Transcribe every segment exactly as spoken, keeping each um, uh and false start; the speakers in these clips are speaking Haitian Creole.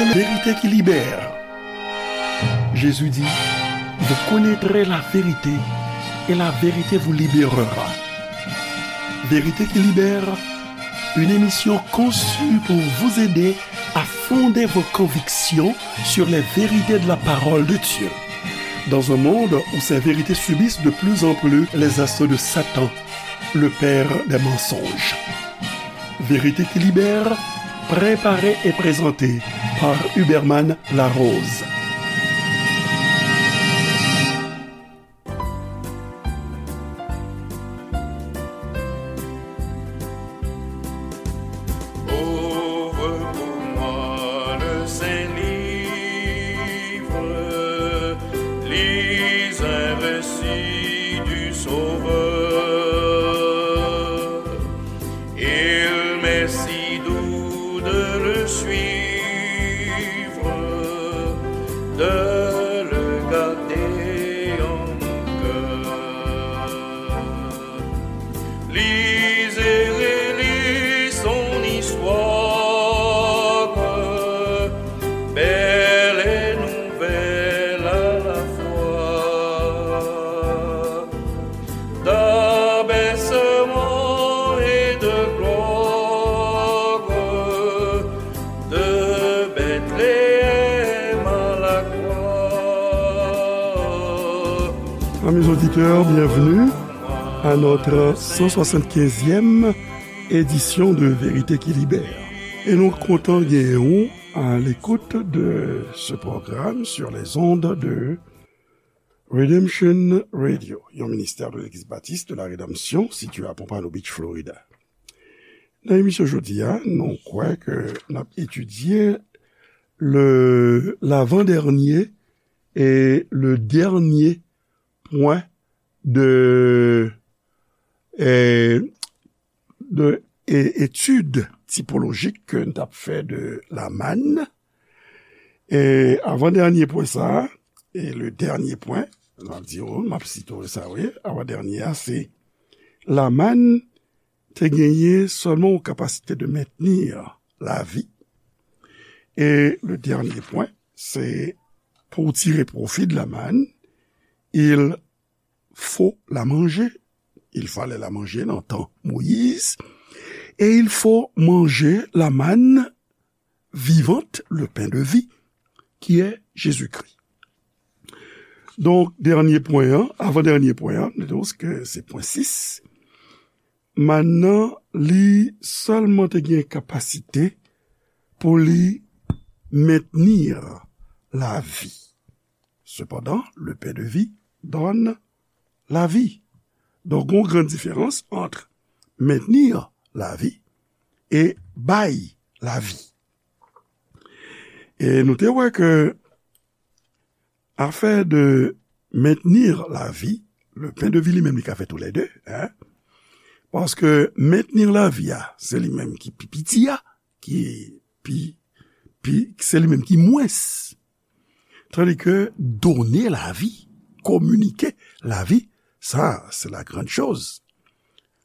Vérité qui libère. Jésus dit, vous connaîtrez la vérité et la vérité vous libérera. Vérité qui libère, une émission conçue pour vous aider à fonder vos convictions sur les vérités de la parole de Dieu. Dans un monde où ces vérités subissent de plus en plus les assauts de Satan, le père des mensonges. Vérité qui libère, préparée et présentée par Huberman Larose. Ouvre pour moi le saint livre, lis un récit du Sauveur. Il m'est si doux de le suivre, de le garder en mon cœur. Lisez et relisez son histoire, belle et nouvelle à la fois. D'abaissement et de gloire, de Bethléem à la croix. Amis auditeurs, bienvenue à notre cent soixante-quinzième édition de Vérité qui Libère. Et nous content à l'écoute de ce programme sur les ondes de Redemption Radio, yon ministè de Legliz Batis de la Redanmsyon sitiye a Pompano Beach, Florida. Nan emisyon jodi a, nou kwè ke n ap etidye le, lavandènye e le dènye pwen de, eh, de, e, etid tipolojik ke n t ap fè de Laman. E avandènye pwen sa a, e le dènye pwen, m ap di w, m ap site w sa, wi, avandènye a, se Laman te genyen sèlman yon kapasite de mentni lavi. E le dènye pwen, se pou w tire pwofi de Laman, il faut la manger. Il fallait la manger nan tan Moyiz. Et il faut manger la manne vivante, le pain de vie, qui est Jésus-Christ. Donk, dènye pwen an, avan dènye pwen an, nou di ke se pwen sis. Mann nan, li sèlman te gen kapasite pou li mentni lavi. Cependant, le pain de vie donne la vie. Donk, gon gran diferans ant mentni lavi e bay lavi. E nou te wè ke afè de mentni lavi, le pain de vie li menm li ka fè toulède, en. Paske mentni lavi a, se li menm ki pi piti a, ki pi, pi, se li menm ki mwens. Tandis que donner la vie, communiquer la vie, sa, se la grande chose.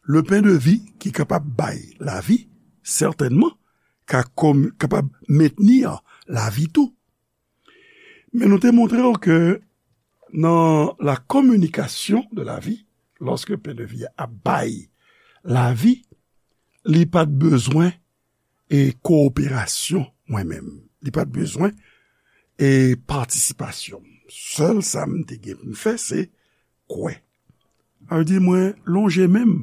Le pain de vie ki kapab bay lavi, sètènman, ka kom-, kapab mentni lavi tou. Men nou te montre w ke nan la communication de la vie, lòske pain de vie a bay lavi, li pa t bezwen e kowoperasyon mwen menm. Li pa t bezwen e patisipasyon. Sèl sa m te gen pou m fè, se kwè. Sa vle di mwen lonje men m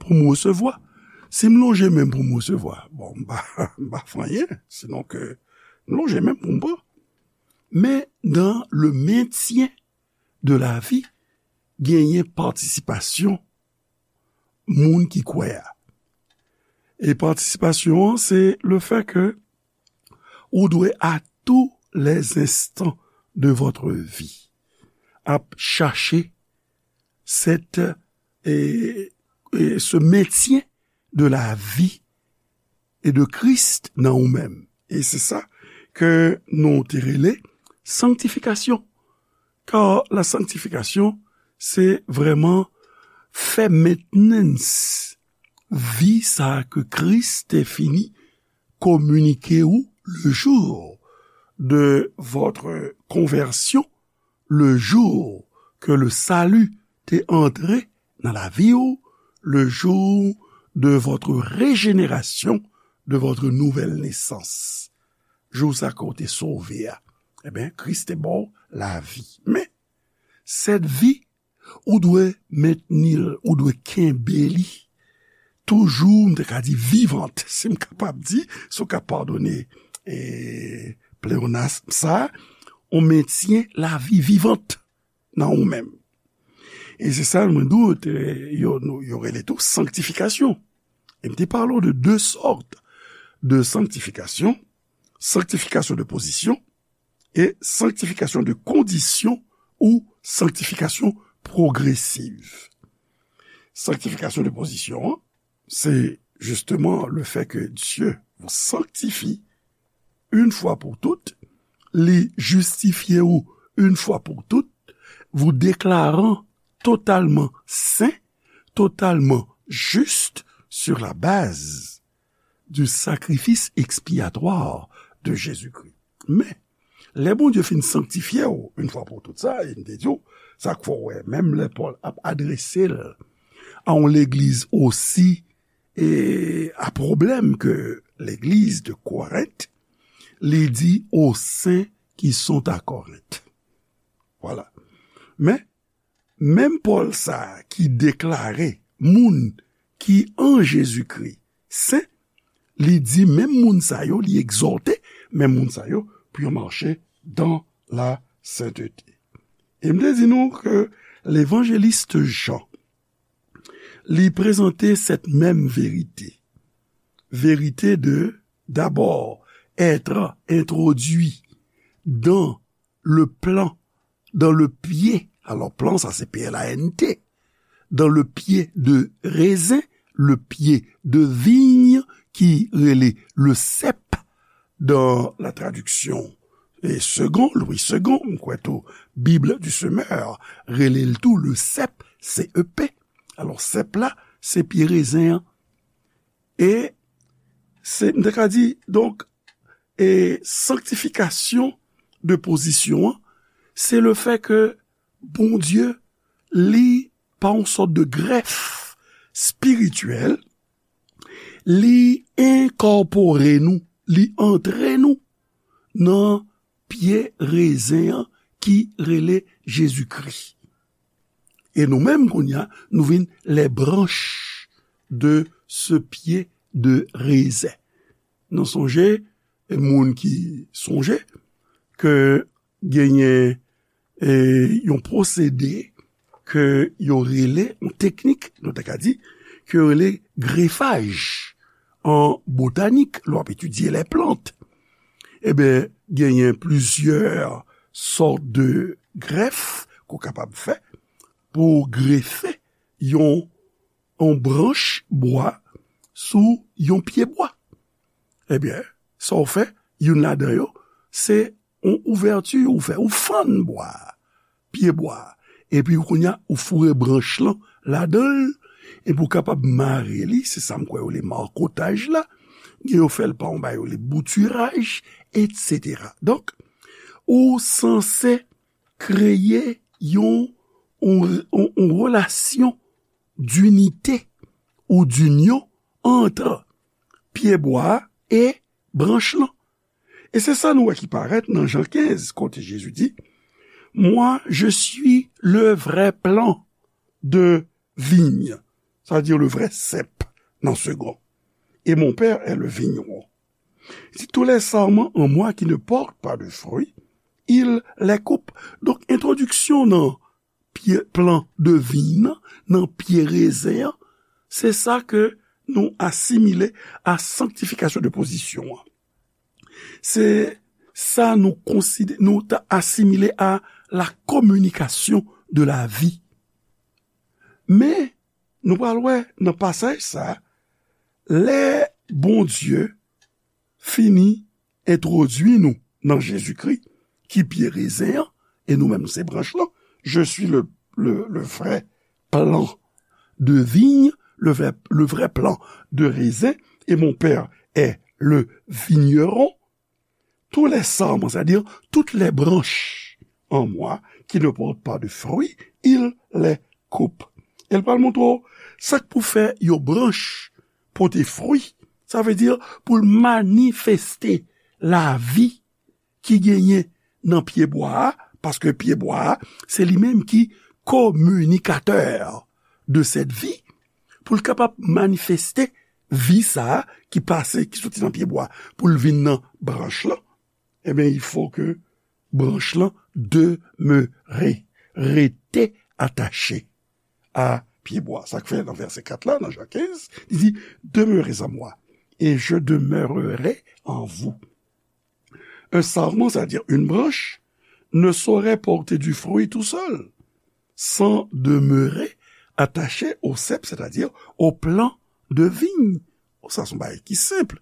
pou m resevwa. Si m lonje men m pou m resevwa, bon, m pa, m pa fè anyen, sinon ke m lonje men m pou m pran. Men dans le maintien de la vie, genyen patisipasyon moun ki kwè a. E patisipasyon an, se le fait que ou dwe à tous les instants de votre vie ap chache cette, e, e, ce maintien de la vie et de Christ nan ou menm. E se sa ke nou te rele sanktifikasyon. Kar la sanktifikasyon, se vrèman fè mentnans vi sa ke Kris te fini kominike ou le jou de votre conversion, le jour que le salut t'est entré dans la vie, ou le jour de votre régénération, de votre nouvelle naissance. Jou sa ke w te sove a, ebyen, Kris te ba w lavi. Men, cette vie, ou dwe mentni l, ou dwe kenbe li toujou, m te ka di vivant, si m kapab di, si w ka padone, e, pleonasm sa, on maintient la vie vivante nan ou menm. E se sa mwen di w, te, yo, nou, yo rele tou sanktifikasyon. E m te pale w de de sòt de sanktifikasyon, sanktifikasyon de pozisyon e sanktifikasyon de kondisyon ou sanktifikasyon pwogresiv. Sanktifikasyon de pozisyon an, c'est justement le fait que Dieu vous sanctifie une fois pour toutes, li jistifye ou une fois pour toutes, vous déclarant totalement saint, totalement juste sur la base du sacrifice expiatoire de Jésus-Christ. Men, lè Bondye fin sanktifye w, une fois pour toutes, sa, e m te di w, sa k fè w wè, menm lè Pòl ap adrese l a yon legliz osi, e, a pwoblèm ke legliz de Korent, li di aux saints qui sont à Corinth. Voilà. Men, menm Pòl sa a ki deklare moun ki an Jezikri sen, li di menm moun sa yo, li egzòte menm moun sa yo pou yo mache dans la sainteté. E m te di nou ke levanjelis Jan, li prezante cette même vérité. Vérité de, d'abord, être introduit dans le plant, dans le pied. Alors, plant, sa se P L A N T. Dans le pied de raisin, le pied de vigne, ki rele le cep dans la traduction, e, Segond, Louis Segond, m kwè tou, Bible du Semeur, rele l tou le cep, C E P. Alò, cep la, se pye rezen an. E se, m te ka di, donk, e sanktifikasyon de pozisyon an, se le fè ke Bondye, li, pa yon sòt de grèf espirityèl, li enkòpore nou, li antre nou nan pye rezen an ki rele Jezikri. E nou menm, kounye a, nou vin les branches de ce pied de raisin. Nou sonje, e moun ki sonje ke genyen, e, yon pwosede ke yo rele, yon teknik, nou ta ka di, ke yo rele grefaj an botanik, lè w ap etidye les plantes. Ebyen, genyen plizyè sòt de grèf ke w kapab fè pou w grefe yon, yon branch bwa sou yon pye bwa. Ebyen, sa w fè, youn ladan yo, se yon ouvèti ou fè, ou fann bwa a, pye bwa a. Epi kounye a, ou foure branch lan ladan l, epi ou kapab mare li, se sa m kwè yo rele makotaj la, gen yo fè l pa yon bagay yo rele boutiraj, etsetera. Donk, ou sanse kreye yon, yon, yon, yon relasyon dinite ou dinyon ant pye bwa a e branch lan. E se sa nou wè ki parèt nan Jan kenz, kote Jezi di, Moi, je suis le vrai plant de vigne, c'est-à-dire le vrai cep, nan Segond, et mon Père est le vigneron. Il dit, tous les sarments en moi qui ne portent pas de fruits, il les coupe. Donk, entwodiksyon nan pye, plan de viy nan, nan pye rezen an, se sa ke nou asimile a sanktifikasyon de pozisyon an. Se sa nou konside-, nou ta asimile a la communication de la vie. Men, nou pral wè nan pasaj sa, lè Bondye fini entwodui nou nan Jezikri, ki pye rezen an, e nou menm se branch lan. Je suis le, le, le vrai plan de vigne, le vrai, le vrai plan de raisin, et mon Père est le vigneron. tous les sarments, c'est-à-dire toutes les branches en moi qui ne portent pas de fruits, il les coupe. E l pral montre w sa k pou fè yon branch pote fwi. Sa vle di pou l manifeste lavi ki genyen nan pyebwa a, paske pyebwa a, se li menm ki kominikatè de cette vie, pou l kapab manifeste vi sa a ki pase, ki soti nan pyebwa a, pou l vin nan branch lan, ebyen, il faut que branch lan demere, rete atache a pyebwa. Sa k fè nan vèsè kat la, nan Jan kenz, li di, demeurez en moi, et je demeurerai en vous. Un sarment, c'est-à-dire une branche, ne saurait porter du fruit tout seul, sans demeurer attaché au cep, c'est-à-dire au plant de vigne. Sa se yon bagay ki senp.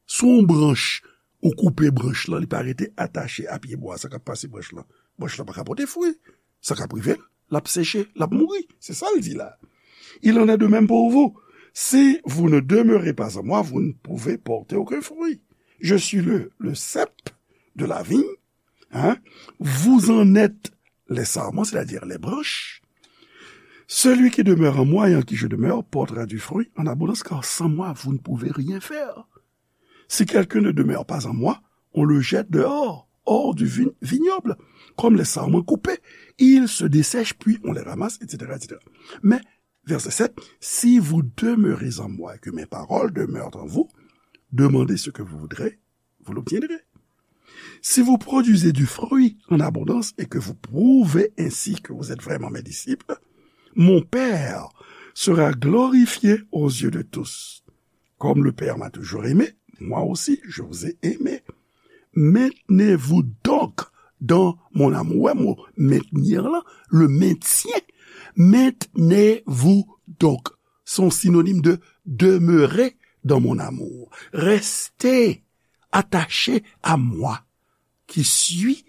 Si yon branch, ou koupe branch lan, li pa rete atache a pyebwa, sa k ap pase branch lan? Branch lan pa ka pote fwi. Sa k ap rive l? L ap seche, l ap mouri. Se sa l di la. Il en est de même pour vous. Si vous ne demeurez pas en moi, vous ne pouvez porter aucun fruit. Je suis le, le cep de la vigne, hein? Vous en êtes les sarments, c'est-à-dire les branches. Celui qui demeure en moi et en qui je demeure portera du fruit en abondance, car sans moi, vous ne pouvez rien faire. Si quelqu'un ne demeure pas en moi, on le jette dehors, hors du vin- vignoble, comme les sarments coupés. Ils se dessèchent, puis on les ramasse, et cetera, et cetera. Mais, verset sept, si vous demeurez en moi et que mes paroles demeurent en vous, demandez ce que vous voudrez, vous l'obtiendrez. Si vous produisez du fruit en abondance et que vous prouvez ainsi que vous êtes vraiment mes disciples, mon Père sera glorifié aux yeux de tous. Comme le Père m'a toujours aimé, moi aussi je vous ai aimé. Maintenez-vous donc dans mon amour. Wè mo maintenir la, le maintien. Maintenez-vous donc. Se yon sinonim de demeurer dans mon amour. Restez attaché à moi, qui suis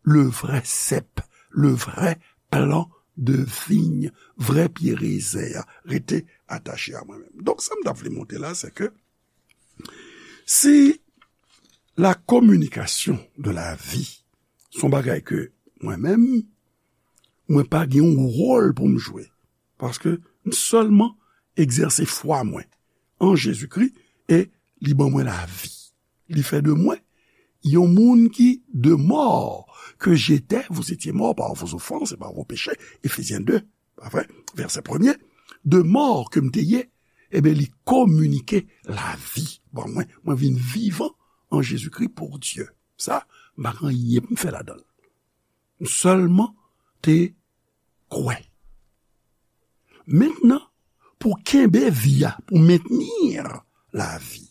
le vrai cep, le vrai plan de vigne, vrè pye rezen an. Rete atache a mwen menm. Donk, sa m t ap vle montre la, se ke si la communication de la vie, se yon bagay ke mwen menm, mwen pa gen yon wòl pou m jwe. Paske m sèlman egzèse fwa mwen an Jezikri e li ban mwen lavi. Li fè de mwen yon moun ki de mort que j'étais, vous étiez morts par vos offenses et par vos péchés, Éphésiens deux, pa vre? Vèsè premye, de mort ke m te ye, ebyen, li kominike lavi ban mwen. Mwen vin vivan an Jezikri pou Dye. Sa, m pa gen anyen pou m fè ladan l. M sèlman te kwè. Mentnan, pou kenbe vi a, pou mentenir lavi,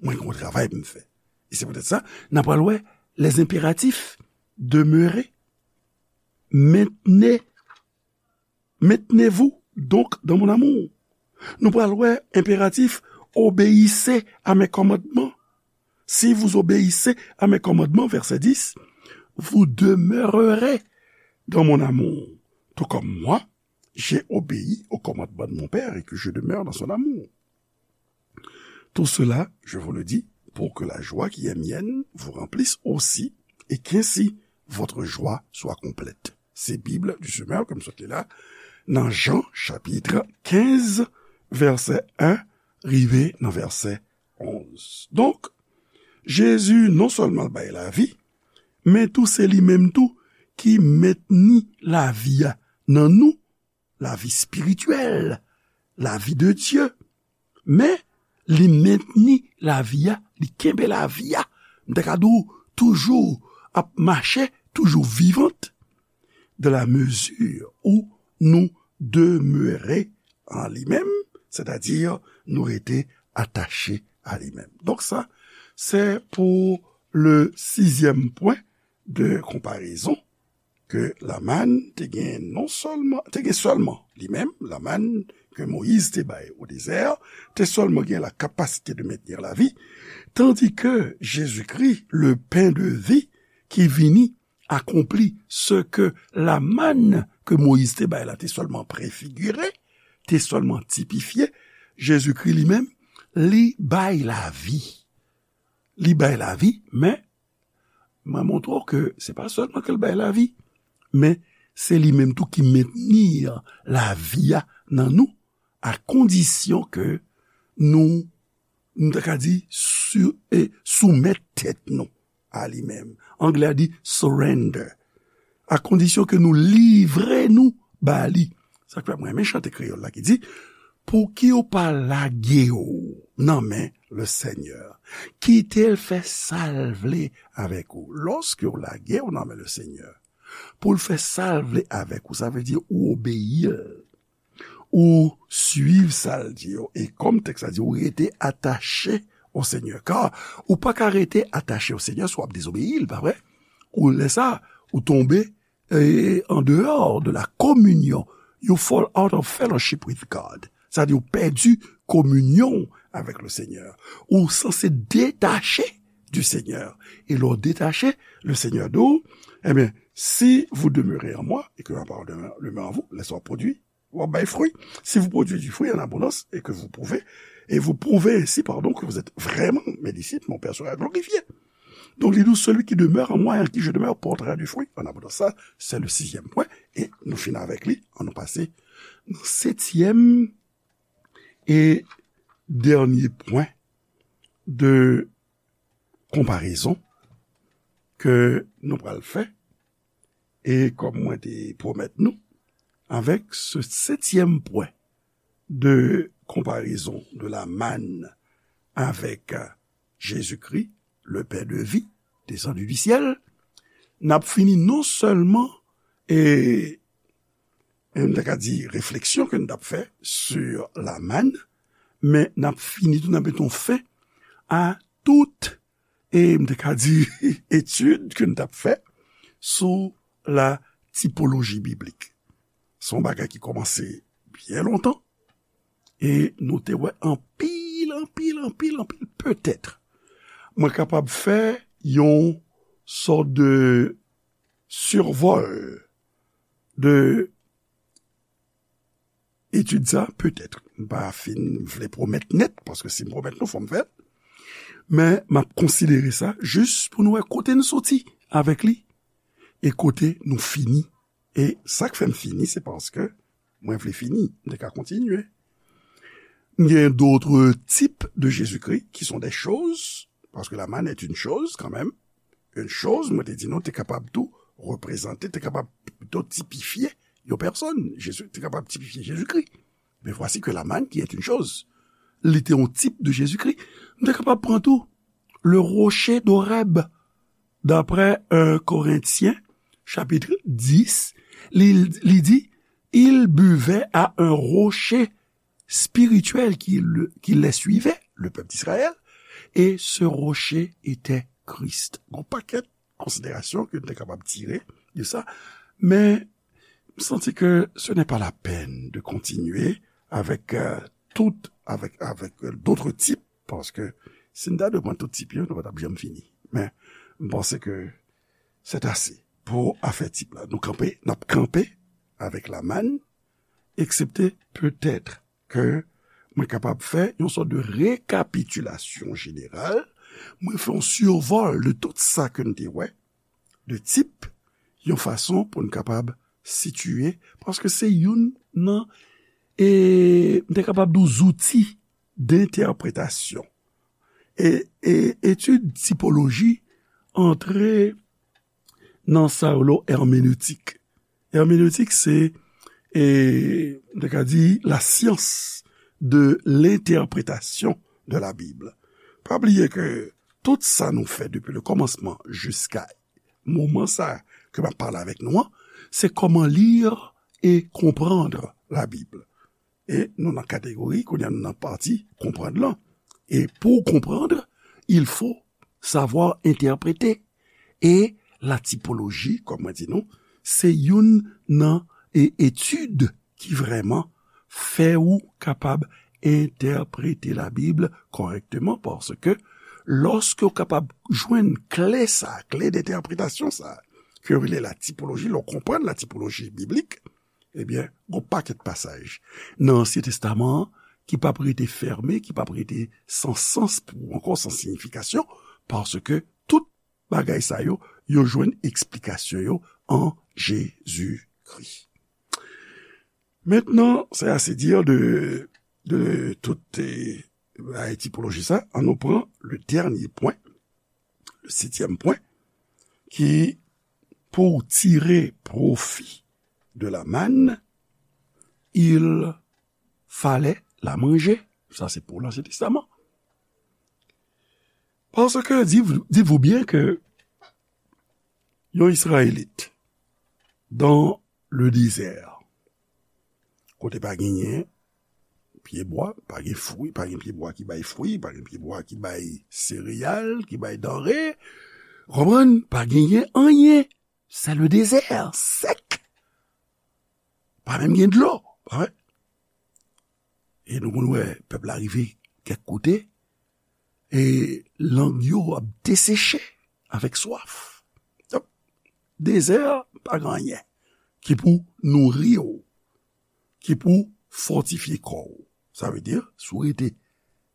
mwen gen yon travay pou m fè. E se poutèt sa, n a pral wè les impératifs, demeurer, maintenez, maintenez-vous donc dans mon amour. Nou pral wè enperatif, obéissez à mes commandements. Si vous obéissez à mes commandements, verset dix, vous demeurerez dans mon amour, tout comme moi, j'ai obéi au commandement de mon Père et que je demeure dans son amour. Tout cela, je vous le dis, pour que la joie qui est mienne vous remplisse aussi, et qu'ainsi votre joie soit complète. Se Bib du Semeur ke m sot li la, nan Jan, chapit kenz, vèsè en, rive nan vèsè onz. Donk, Jezi non sèlman l bay lavi, men tou se li menm tou ki mentni lavi a nan nou, lavi espirityèl, lavi de Dye. Men, li mentni lavi a, li kenbe lavi a. M ta ka di w, toujou ap mache, toujou vivant, dans la mesure où nous demeurer en li menm, sètadi nou rete atache a li menm. Donk sa, se pou le sizyèm pwen de konparezon ke Lamann te gen non sèlman, te gen sèlman li menm, Lamann ke Moyiz te bay o dezè, te sèlman gen la kapasite de mentni lavi, tandis que Jésus-Christ, le pain de vie, ki vini akonpli ce que Lamann ke Moyiz te bay la te sèlman prefigire, te sèlman tipifye, Jezikri li menm, li bay lavi. Li bay lavi, men Mwen montre w ke se pa sèlman ke l bay lavi, men se li menm tou ki mentni lavi a nan nou, a kondisyon ke nou, nou ta ka di, sou, e, soumèt tèt nou a li menm. Anglè a di surrender. A kondisyon ke nou livre nou ba li. Sa k fè mwen renmen chante kreyòl la ki di, "Pouki w pa lage w nan men le Senyè? Kite l fè sa l vle avèk ou." Lòske w lage w nan men le Senyè, pou l fè sa l vle avèk ou, sa vle di ou obeyi l. Ou suiv sa l di yo. E kòm tèks la di, ou rete atache o Senyè. Ka ou pa ka rete atache o Senyè si w ap dezobeyi l, pa vre? Ou lè sa, ou tonbe, e, an deyò de la kominyon. You fall out of fellowship with God. Sa di ou pèdi kominyon avèk le Senyè. Ou sanse detache du Seigneur. E lè w detache, le Senyè di w, ebyen, si vous demeurez en moi et que ma parole demeure en vous, lè sa w ap pwodui, w ap bay fwi. Si vous produisez du fruit en abondance et que vous pouvez, et vous prouvez ainsi, pardon, que vous êtes vraiment mes disciples, mon Père sera glorifié. Donc, il dit, celui qui demeure en moi et en qui je demeure portera du fruit en abondance. Ça, c'est le sixième point. Et nous finissons avec lui, en nous passer dans le septième et dernier point de konparezon ke nou pral fè, e kòm mwen te pwomèt nou, avèk se setyèm pwen de konparezon de la manne avèk, euh, Jésus-Christ, le pain de vie, descendu du ciel, n ap fini non sèlman, e, e m ta ka di refleksyon ke n t ap fè sur la manne, men n ap fini tou, n ap met yon fen a tout, e m te ka di, etid ke n t ap fè sou la tipoloji biblik. Se yon bagay ki kòmanse byen lontan, e nou te wè anpil, anpil, anpil, anpil, petèt, mwen kapab fè yon sòt de survol de etid sa, petèt. M pa fin vle pwomèt nèt, paske si m pwomèt nou, fò m fè l. Men m ap konsidere sa jis pou nou wè kote n soti avèk li e kote nou fini. E sa k fè m fini, se paske mwen vle fini, m te ka kontinye. M gen d'autres types de Jésus-Christ qui sont des choses, parce que la manne est une chose quand même. Une chose, mwen te di nou, te kapab tou reprezante, te kapab pito tipifye yon pèsòn. Jezi, te kapab tipifye Jezikri. Mais voici que la manne qui est une chose, li te yon tip de Jezikri. M te kapab pran tou le rocher d'Horeb, d'après un Corinthiens, chapitre dix, li, li di, il buvait à un rocher spirituel qui, le, qui les suivait, le peuple d'Israël, et ce rocher était Christ. Gon pakèt konsiderasyon ke nou te kapab tire de sa, men m santi ke ce n'est pas la peine de continuer avec, euh, tout, avec, avec, euh, d'autres types, paske si n ta dwe pran tout tip yo, nou pa t ap janm fini. Men m panse ke c'est assez pou afè tip la. Nou kanpe, n ap kanpe avèk la manne, eksepte petèt ke mwen kapab fè yon sòt de rekapitilasyon jeneral, mwen fè yon sivòl de tout sa ke n te wè, de tip, yon fason pou n kapab sitiye, paske se youn nan, e, m te kapab di w, zouti dentèpretasyon. E, e etid tipoloji antre nan sa yo rele hermeneutik. Hermeneutik, se, e, m te ka di, la science de l'interprétation de la Bible. Pa bliye ke tout sa nou fè depi le kòmansman jiska moman sa ke m ap pale avèk nou an, se kòman lire et comprendre la Bible. E nou nan kategori, kounye a nou nan pati konprann lan. E pou w konprann, il faut savoir interpréter. E la tipoloji, kòm mwen di nou, se youn nan, e, etid ki vrèman fè ou kapab entèprete Labib kòrèkteman, paske lòske w kapab jwenn kle sa, kle dentèpretasyon sa, ke yo rele la tipoloji, lè w konprann la tipoloji biblik, ebyen, gon pakèt pasaj nan Ansyen Testaman an ki p ap rete fèmen, ki p ap rete san sans pou ou ankò, san siyifikasyon, paske tout bagay sa yo, yo jwenn eksplikasyon yo an Jezikri. Mentnan, c'est assez dire de, de tout, eh, tipoloji sa. Ann nou pran le dènye pwen, le sityèm pwen, ki, pour tirer profit de la manne, il fallait la manger. Sa se pou Lansyen Testaman. Parce que, dites-vous, dites-vous bien que yon Israélite dans le désert, kote pa genyen pyebwa, pa gen fwi, pa gen pyebwa ki bay fwi, pa gen pyebwa ki bay sereyal, ki bay danre, konprann, pa genyen anyen. C'est le désert, sèk. Pa menm gen dlo, pa vre? E nou konn wè pèp la rive kèk kote, e lang yo ap deseche avèk swaf. Donk, dezè a pa gen anyen ki pou nouri w, ki pou fòtifye kò w. Sa vle di, si w rete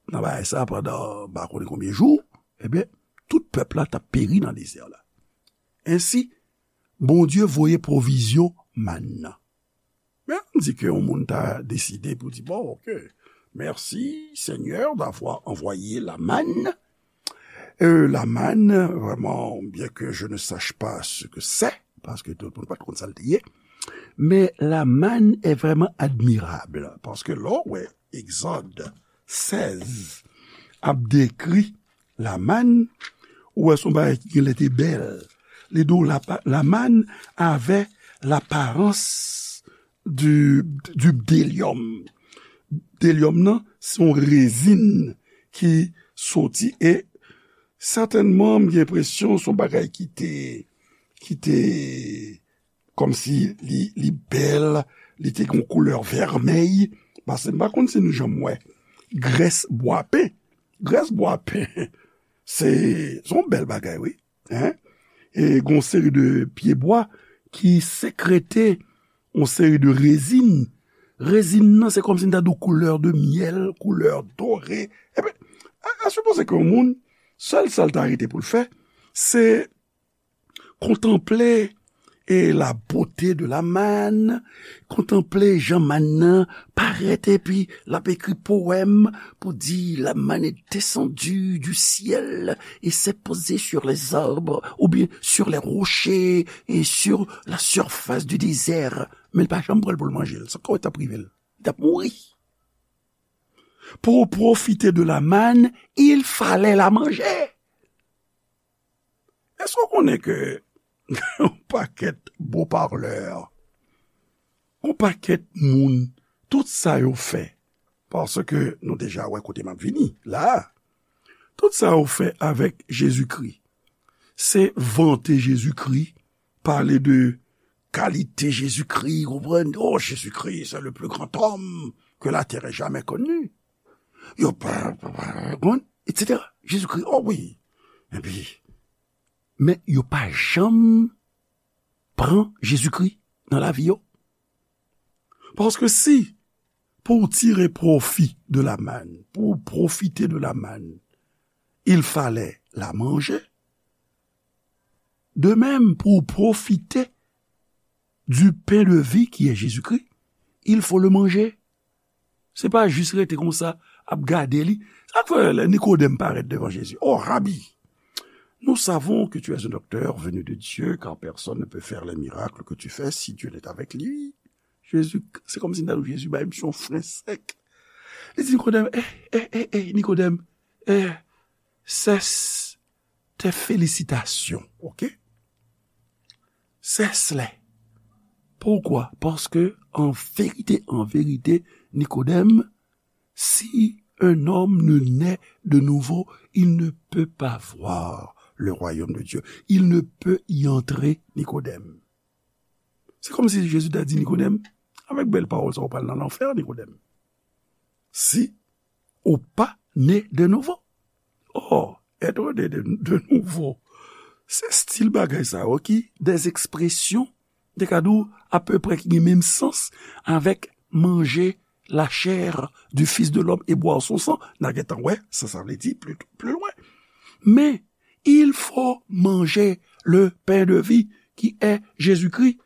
nan bagay sa pandan m pa konnen konbyen jou, ebyen, tout pèp la t ap peri nan dezè la. Ensi, Bondye voye pwovizyon mann nan. Men, ann di ke yon moun ta deside pou di, bon, ok, merci Seigneur d'avoir envoyé la manne. Euh, la manne, vraiment, bien que je ne sache pas ce que c'est, paske tout moun pa t konn sa l te ye, men la manne est vraiment admirable, paske lè w wè Egzòd sèz ap dekri la manne, ou wè se yon bagay ki genlè te bèl. Li di w la, la manne avait l'apparence du, du bdélium. Bdélium nan, se yon rezin ki soti e sètènman, m gen enpresyon se yon bagay ki te, ki te, kòmsi li, li bèl, li te gen yon koulè vèmèy, paske m pa konn si nou janm wè grès bwapen. Grès bwapen, se, se yon bèl bagay, wi. Hein? E gen yon seri de pyebwa ki sekrete yon seri de rezin. Rezin nan, se kòmsi m ta di w koulè de myèl, koulè dore. Ebyen, a, a sipoze ke yon moun, sèl sa l ta rete pou l fè, se kontanple e la beauté de la manne, kontanple jan mann nan parèt, epi l ap ekri powèm pou di, la manne est descendue du ciel et s'est posée sur les arbres, oubyen sur les rochers et sur la surface du désert. Men l pa janm pran l pou l manje l. Sa k wè t ap rive l? Li t ap mouri. Pour profiter de la manne, il fallait la manger. Èske w konnen ke yon pakèt bon parlè, yon pakèt moun, tout sa yo fè, paske nou deja wè kote m ap vini la, tout sa yo fè avèk Jezikri, se vante Jezikri, pale de kalite Jezikri, konprann, oh, Jezikri, c'est le plus grand homme que la terre ait jamais connu. Yo pa, pa, pa, konprann, et cetera. Jezikri, oh wi. Epi, men yo pa janm pran Jezikri nan lavi yo. Paske si, pour tirer profit de la manne, pour profiter de la manne, il fallait la manger, de même, pour profiter du pain de vie qui est Jésus-Christ, il faut le manger. Se pa jis rete konsa, ap gade li. Sa k fè lè Nikodèm parèt devan Jezi, oh, Rabbi, nous savons que tu es un docteur venu de Dieu, car personne ne peut faire les miracles que tu fais si Dieu n'est avec lui. Jezi, se kòmsi m ta di w, Jezi bay misye yon fren sèk. Li di Nikodèm, eh, eh, eh, eh, Nikodèm, eh, cesse tes félicitations, ok? Cesse-les. Pourquoi? Parce que, en vérité, en vérité, Nikodèm, si un homme ne naît de nouveau, il ne peut pas voir le royaume de Dieu. Il ne peut y entrer, Nikodèm. Se kòmsi Jezi ta di Nikodèm, avèk bèl pawòl sa, ou pral nan lanfè, Nikodèm. Si ou pa ne de nouvo. Oh, être né de, de nouveau. Se stil bagay sa yo ki des expressions, te ka di w, apeprè ki gen menm sans avèk manger la chair du Fils de l'homme et boire son sang. N a gentan wè sa sa vle di pli, pli lwen. Men, Il faut manger le pain de vie qui est Jésus-Christ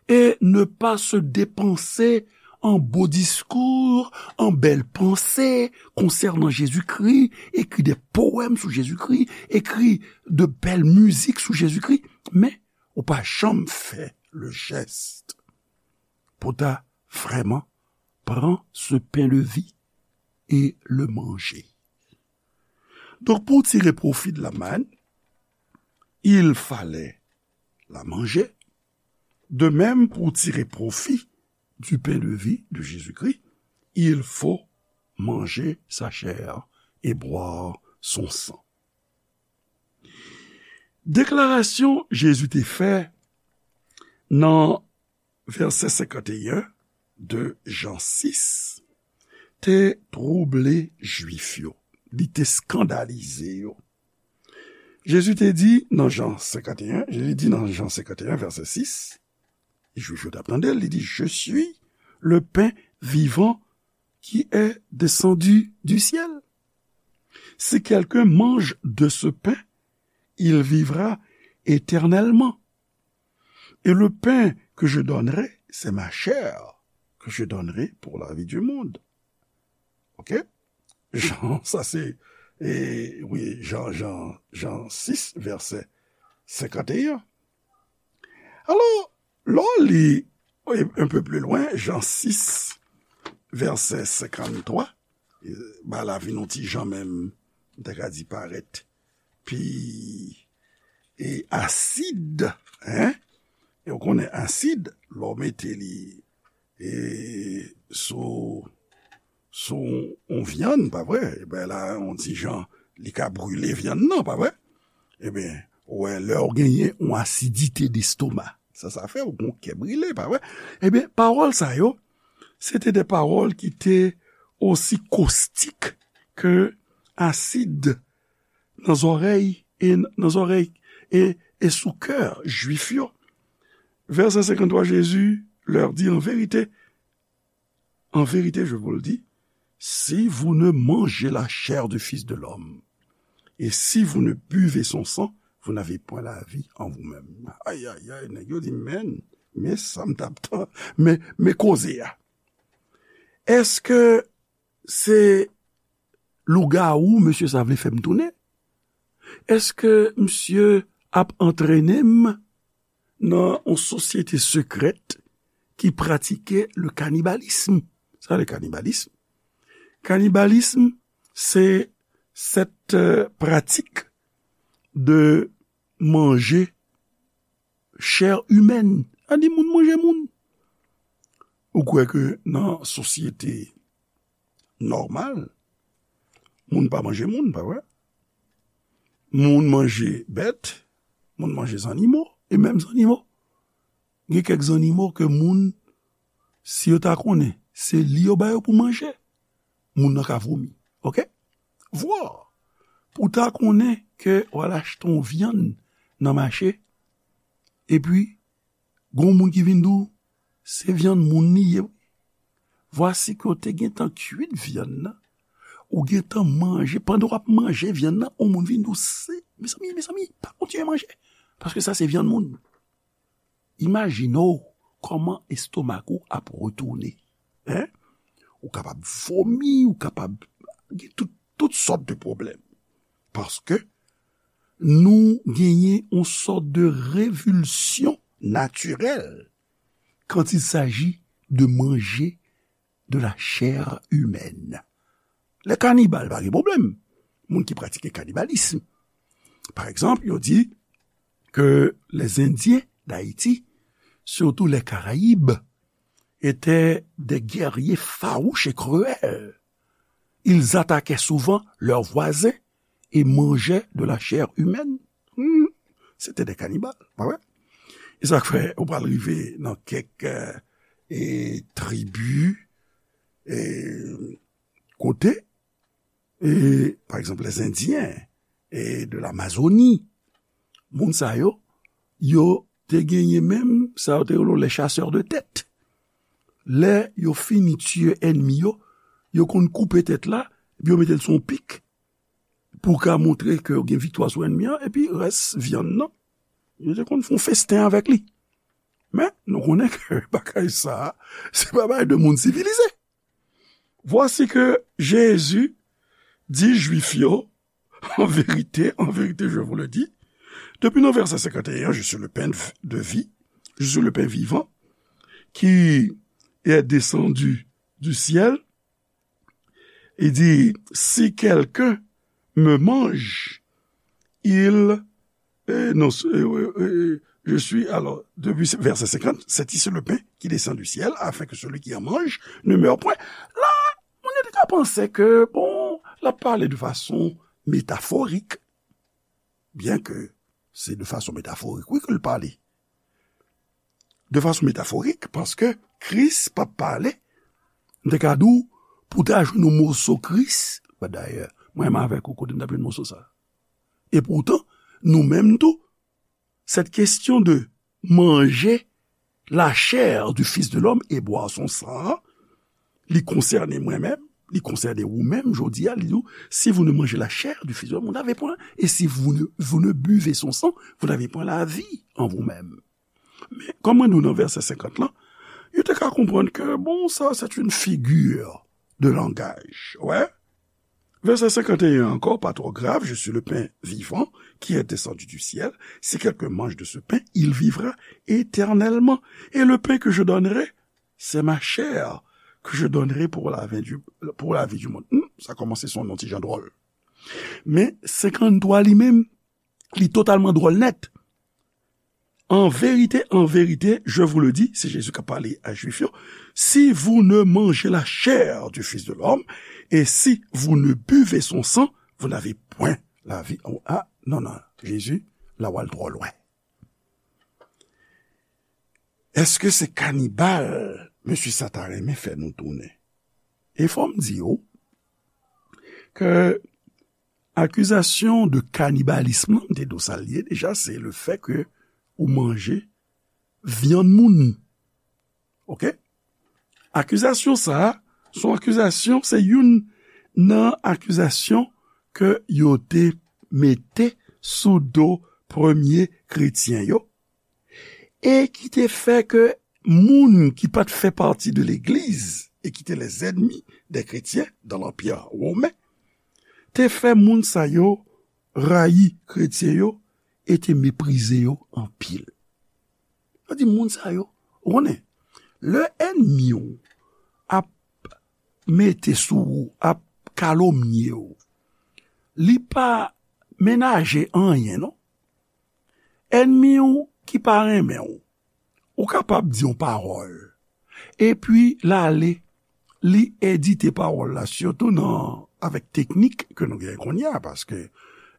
et ne pas se dépenser en beaux discours, en belles pensées concernant Jésus-Christ, écrit des poèmes sur Jésus-Christ, écrit de belles musiques sur Jésus-Christ, men ou pa janm fè le geste pou ta vrèman pran ce pain de vie et le manger. Donk, pou tire pwofi de la manne, il fallait la manger. De même, pour tirer profit du pain de vie de Jésus-Christ, il faut manger sa chair et boire son sang. Deklarasyon Jezi te fè nan vèsè senkanteyen de Jan sis te twouble Jwif yo. Li te eskandalize yo. Jezi te di nan Jan senkanteyen, Jezi di nan Jan senkanteyen, vèsè sis, Jwif yo t ap tande l, li di, Je suis le pain vivant qui est descendu du ciel. Si quelqu'un mange de ce pain, il vivra éternellement. Et le pain que je donnerai, c'est ma chair que je donnerai pour la vie du monde. Ok? Jan, sa se, e, wi, Jan, Jan, Jan sis, vèsè senkanteyen. Alò, lè w li, e, un peu plus loin, Jan sis, vèsè senkanntwa, e, ba la vin yon ti jan menm, m ta ka di parèt pi, e, asid, en? E w konnen asid, lè w mete li, e, sou, sou yon vyann, pa vre? Ebyen la, yon ti jan, li ka brile vyann nan, pa vre? Ebyen, ou wè, lè w genyen yon asidite destoma, sa, sa fè w gon kè brile, pa vre? Ebyen, pawòl sa yo, se te de pawòl ki te osi kostik ke asid nan zòrèy e nan zòrèy e, e sou kè Jwif yo. Vèsè senkanntwa, Jésus leur dit, en vérité, en vérité, je vous le dis, si vous ne mangez la chair du Fils de l'homme, et si vous ne buvez son sang, vous n'avez point la vie en vous-même. Ay, ay, ay, nèg yo di, men, men sa m t ap tan, men, men koze a. Èske se lougawou mesye sa vle fè m tounen? Èske misye ap antrene m nan yon sosyete sekrèt ki pratike le cannibalisme? Sa le cannibalisme? Cannibalisme, c'est cette, euh, pratique de manger chair humaine. Sa di moun manje moun. Ou kwè ke nan sosyete nòmal, moun pa manje moun, pa vre? Moun manje bèt, moun manje zannimo, e menm zannimo. Gen kèk zannimo ke moun, si yo ta konnen, se li yo ba yo pou manje, moun nan ka vomi. Ok? Vwa! Pou ta konnen ke w al achte yon vyann nan mache, epi gon moun ki vin di w, se vyann moun li ye, wi. Vwasi ke w te gentan kuit vyann nan, ou gentan manje, pandan w ap manje vyann nan, yon moun vin di w, se, mezanmi, mezanmi, pa kontinye manje, paske sa se vyann moun. Imajine w kòman estomak ou ap retounen. En? Ou kapab vomi, ou kapab gen tout, tout sòt de pwoblèm. Paske nou genyen yon sòt de revulsyon natirèl quand il s'agit de manger de la chair humaine. Les cannibales, pa gen pwoblèm. Moun ki pratike kanibalism. Pa egzanp, yo di ke les Indiens d'Haïti, surtout les Caraïbes, étaient des guerriers farouches et cruels. Ils attaquaient souvent leurs voisins et mangeaient de la chair humaine. Hmm. C'était des cannibales, pa vre? E sa k fè ou pral rive nan kèk, euh, e, tribi, e, kote, e, pa egzanp, les Indiens, e, de l'Amazonie. Moun sa yo, yo te genyen menm, sa yo te rele les chasseurs de tête. Lè yo fini tiye ènmi yo, yo konn koupe tèt la, epi yo mete l sou yon pik. pou w ka montre ke w gen viktwa sou ènmi an, epi rès vyann nan, yo te konn fè yon festen avèk li. Men, nou konnen ke bagay sa a, se pa bagay de moun sivilize. Voici que Jésus dit Juif yo, en vérité, en vérité, je vous le dis, depuis nos versets cinquante et un, je suis le pain de vie, je suis le pain vivant, qui est descendu du ciel. Il dit, si quelqu'un me mange, il, euh, non, euh, euh, euh, je suis, alors, depuis verset cinquante, c'est ici le pain qui descend du ciel, afin que celui qui en mange ne meure point. La, moun yo te ka panse ke, bon, l ap pale de fason metaforik, byen ke se de fason metaforik, wi, ke l pale. De fason metaforik, paske Kris p ap pale, m te ka di w, pou w ta jwenn yon moso Kris, dayè, mwen menm avèk ou, kote m t ap jwenn moso sa a? Epoutan, nou menm tou, cette question de manger la chair du Fils de l'homme et boire son sang, li konsène mwen menm, li konsène ou menm, jodi a, li di w, si vous ne mangez la chair du Fils de l'homme, vous n'avez point, et si vous ne, vous ne buvez son sang, vous n'avez point la vie en vous-même. Men, kòm mwen di w nan vèsè senkant lan, yo te ka konprann ke, bon, sa, c'est une figure de langage. Wè. Verset cinquante et un encore, pas trop grave, je suis le pain vivant qui est descendu du ciel. Si quelqu'un mange de ce pain, il vivra éternellement. Et le pain que je donnerai, c'est ma chair que je donnerai pour la vie du, pour la vie du monde. Hmm, sa kòmanse son non ti jan dwòl. Men, senkant twa li menm, li totalman dwòl nèt. En vérité, en vérité, je vous le dis, se Jezi k ap pale a Jwif yo, si vous ne mangez la chair du Fils de l'homme, et si vous ne buvez son sang, vous n'avez point la vie. Ah, non, non, Jezi, la w al twò lwen. Èske se kanibal mesye sa ta renmen fè nou tounen? E fò m di w ke akizasyon de kanibalism lan, m te di w sa l ye deja, se le fè ke ou manje vyann moun. Oke? Akizasyon sa a, se yon akizasyon, se youn nan akizasyon ke yo te mete sou do premye kretyen yo, e ki te fè ke moun ki pa t fè pati de legliz e ki te lèzènmi dè kretyen dan lanpè women, te fè moun sa yo rayi kretyen yo e te meprize yo anpil. Sa di moun sa yo, ou konnen, lè ènmi w ap mete sou ou, ap kalomnye w, li pa menaje anyen, non. Ènmi w ki pa renmen w, ou kapab di yon pawòl, epi l ale, li edite pawòl la, sitou nan, avèk teknik ke nou gen kounye a, paske,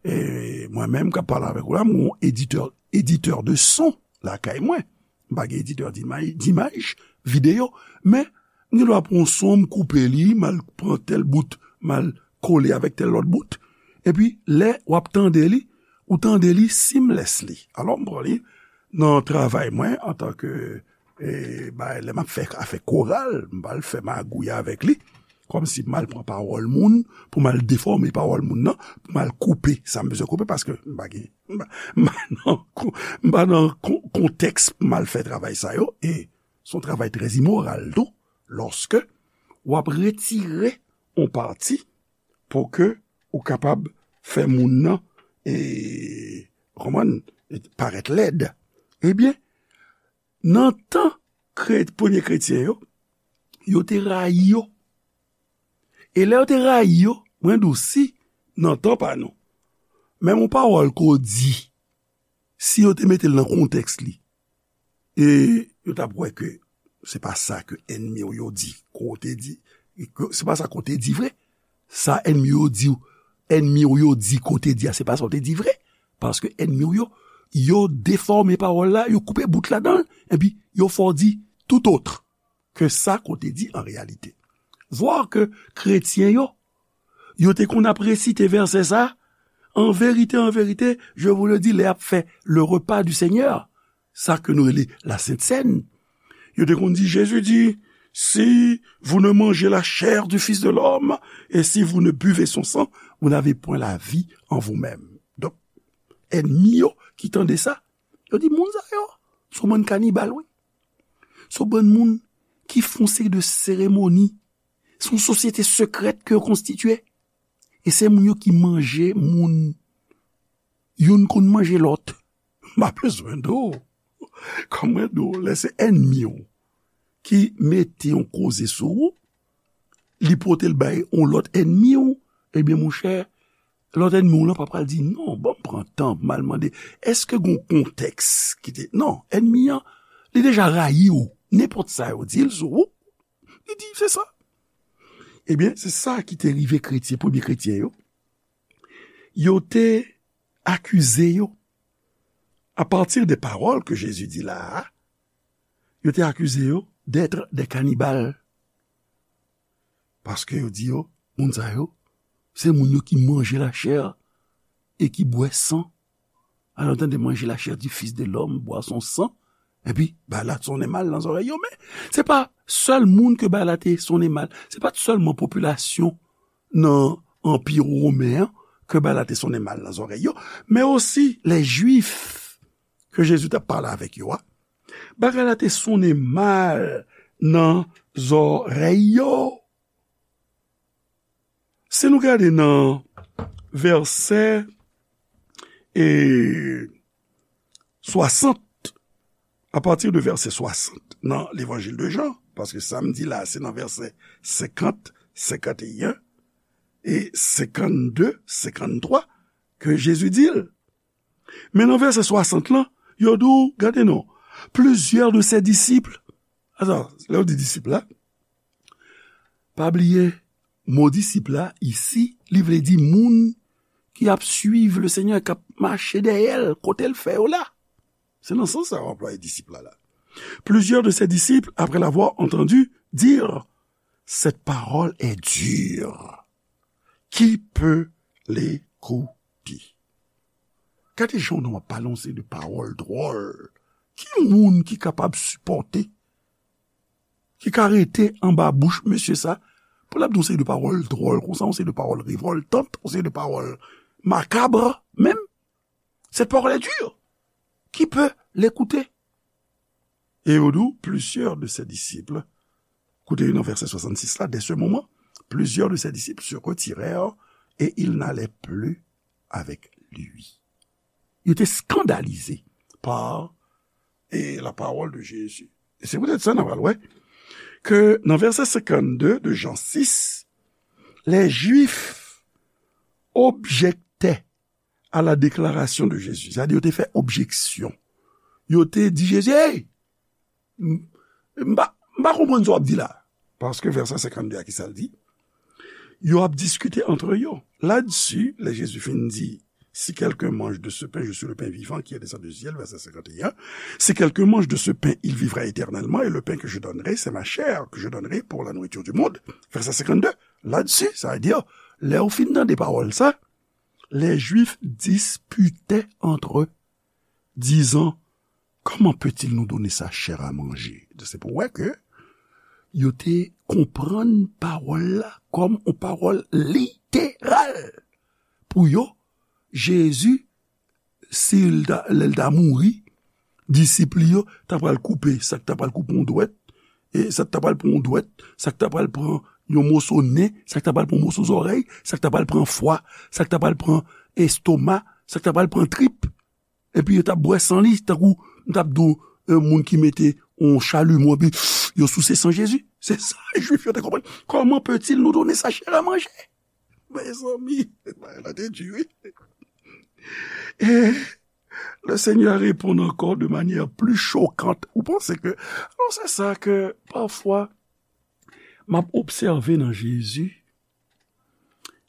e, mwen menm k ap pale avèk ou la, m yon editè, editè de son lakay mwen. M pa gen editè dimay-, dimaj, videyo, men m gen dwa pran yon son, m koupe li, m al pran tèl bout, m al kole avèk tèl lòt bout. Epi, lè w ap tande li, ou tande li seamlessly. Alò, m pran li nan travay mwen antanke, e, bay, lè m ap fè afè koral, m pa al fè magouy avèk li, kòmsi m al pran pawòl moun, pou m al defòme pawòl moun nan, pou m al koupe sa m bezwen koupe, paske m pa gen, m pa, m pa nan kon-, m pa nan kon-, kontèks pou m al fè travay sa yo, e se yon travay trè imoral tou, lòske w ap retire yon pati pou ke ou kapab fè moun nan, e, kòman, parèt lèd. Ebyen, nan tan kre-, premye kretyen yo, yo te rayi yo. E lè yo te rayi yo, mwen di w si, nan tan pa nou, menm yon pawòl ke w di, si yo te mete l nan kontèks li, e yo t ap wè ke se pa sa ke ènmi w yo di, ke w te di, ke se pa sa ke w te di vre. Sa ènmi w yo di w, ènmi w yo di ke w te di a, se pa sa w te di vre. Paske ènmi w yo, yo defòme pawòl la, yo koupe bout ladan l, epi yo fè w di tout autre ke sa ke w te di an reyalite. Vwa ke kretyen yo, yo te konn ap resite vèsè sa, en vérité, en vérité, je vous le dis, lè y ap fè le repas du Seigneur, sa ke nou rele la Sent Sèn, yo te konn di, Jésus dit, si vous ne mangez la chair du Fils de l'homme et si vous ne buvez son sang, vous n'avez point la vie en vous-même. Donk, ènmi yo ki tande sa, yo di, moun sa yo, se yon bann kanibal, wi. Se yon bann moun ki fè yon seri de seremoni. Se yon sosyete sekrèt ke yo konstitye. E se moun yo ki manje moun. Youn konn manje lòt. M pa bezwen di w. Kòm mwen di w, lè se ènmi w ki mete yon koze sou ou, li pote l bay yon lòt ènmi w, ebyen, monchè, lòt ènmi w lan pa pral di, "Non, ban m pran tan pou m al mande, èske gen yon kontèks ki te," Non, ènmi an, li deja rayi w. Nenpòt sa yo di l sou ou, li di, "Se sa." Ebyen, se sa ki te rive kretyen, premye kretyen yo. Yo te akize yo, à partir des paroles que Jésus dit là, yo te akize yo d'être des cannibales. Paske yo di yo, moun sa yo, se moun yo ki manje lachè e ki bwè san. Alò, tande, manger la chair du Fils de l'homme, boire son sang, epi bagay la sonnen mal nan zòrèy yo. Men, se pa sèl moun ke bagay la te sonnen mal. Se pa t sèlman popilasyon nan Anpi Women an ke bagay la te sonnen mal nan zòrèy yo, men osi les Juifs ke Jezi t ap pale avèk yo a. Bagay la te sonnen mal nan zòrèy yo. Si nou gade nan vèsè, e, swasant, à partir de verset soixante, nan Levanjil de Jan, paske sa m di la, se nan vèsè senkant, senkanteyen, e senkannde, senkanntwa, ke Jezi di l. Men nan vèsè swasant lan, yo di w, gade non, plusieurs de ses disciples. Ata, lè yo di disip la, pa bliye, mo disip la, isi, li vle di moun ki ap suiv le Seigneur, k ap mache dèyè l, kote l fè yo la. Se nan sans sa yo anplwaye disip la, la. Plusieurs de ses disciples, après l'avoir entendu dire, cette parole est dure. Qui peut l'écouter? Gade jan yon nonm ap pale yon seri de pawòl dwòl. Ki moun ki kapab sipòte, ki ka rete anba bouch mesye sa, pou l ap di yon seri de pawòl dwòl konsa, yon seri de pawòl revòltan, yon seri de pawòl makab menm? Cette parole est dure. Qui peut l'écouter? Et au doux, plusieurs de ses disciples, koute nan vèsè swasannsis la, dès ce moment, plusieurs de ses disciples se retirèrent et ils n'allaient plus avec lui. Yo te skandalize par, e, la parole de Jésus. E se poutèt sa, n a pral wè ke nan vèsè senkannde de Jan sis, les Juifs objectaient à la déclaration de Jésus. Sa di yo te fè objeksyon. Yo te di Jezi, "Hey, m, m pa, m pa konprann sa w ap di la." Paske vèsè senkannde a, ki sa l di? Yo ap diskite antre yo. Là-dessus, lè Jezi fin di, "Si quelqu'un mange de ce pain, je suis le pain vivant qui est descendu du ciel," vèsè senkannde, "Si quelqu'un mange de ce pain, il vivra éternellement, et le pain que je donnerai, c'est ma chair que je donnerai pour la nourriture du monde." Vèsè senkannde, là-dessus, sa vle di, lè yo fin tande pawòl sa, les Juifs disputaient entre eux, disant, "Comment peut-il nous donner sa chair à manger?" Se pou wè ke yo te konprann pawòl la kòm yon pawòl literal. Pou yo, Jezi, si l ta, lè l ta mouri, disip li yo ta pral koupe, sa k ta pral koupe yon dwèt, e sa k ta pral pran yon dwèt, sa k ta pral pran yon moso nen, sa k ta pral pran yon moso zòrèy, sa k ta pral pran fwa, sa k ta pral pran estoma, sa k ta pral pran trip. Epi yo t ap bwè san li, tankou m t ap di w, e, moun ki mete yon chalumeau, epi yo souse san Jezi. Se sa, Jwif yo te konprann. Comment peut-il nous donner sa chair à manger? Mezanmi, bagay la te di, wi. Et le Seigneur répond encore de manière plus choquante. Ou panse ke, alò, se sa ke, pafwa, m ap obsève nan Jezi.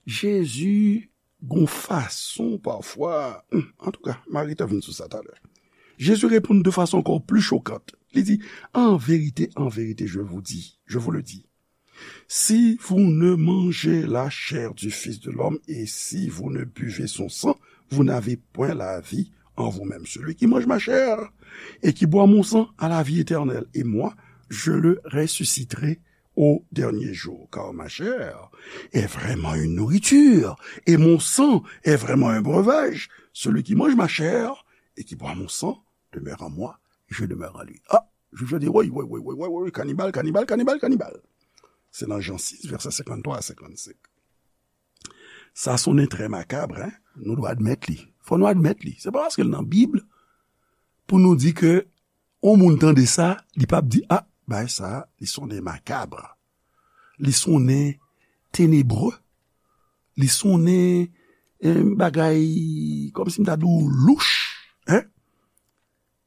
Jezi, gon fason, pafwa, hmm, antouka, Marita vin sou sa talè. Jésus répond de façon encore plus choquante. Li di, "En vérité, en vérité, je vous dis, je vous le dis, si vous ne mangez la chair du Fils de l'homme et si vous ne buvez son sang, vous n'avez point la vie en vous-même. Celui qui mange ma chair et qui boit mon sang a la vie éternelle, et moi, je le ressusciterai au dernier jour, car ma chair est vraiment une nourriture, et mon sang est vraiment un breuvage. Celui qui mange ma chair et qui boit mon sang demeure en moi, je demeure en lui. Ah, Jwif yo di, woy, woy, woy, woy, woy, woy, kanibal, kanibal, kanibal, kanibal. Se nan Jan sis, vèsè senkanntwa a senkannsèt. Sa sonnen trè makab, en? Nou dwe admèt li. Fò nou admèt li. Se pa paske l nan Bib pou nou di ke yon moun tande sa, li p ap di, ah, bagay sa, li sonnen makab. Li sonnen tenebre. Li sonnen, eh, bagay, kòmsi m ta di w louch, en?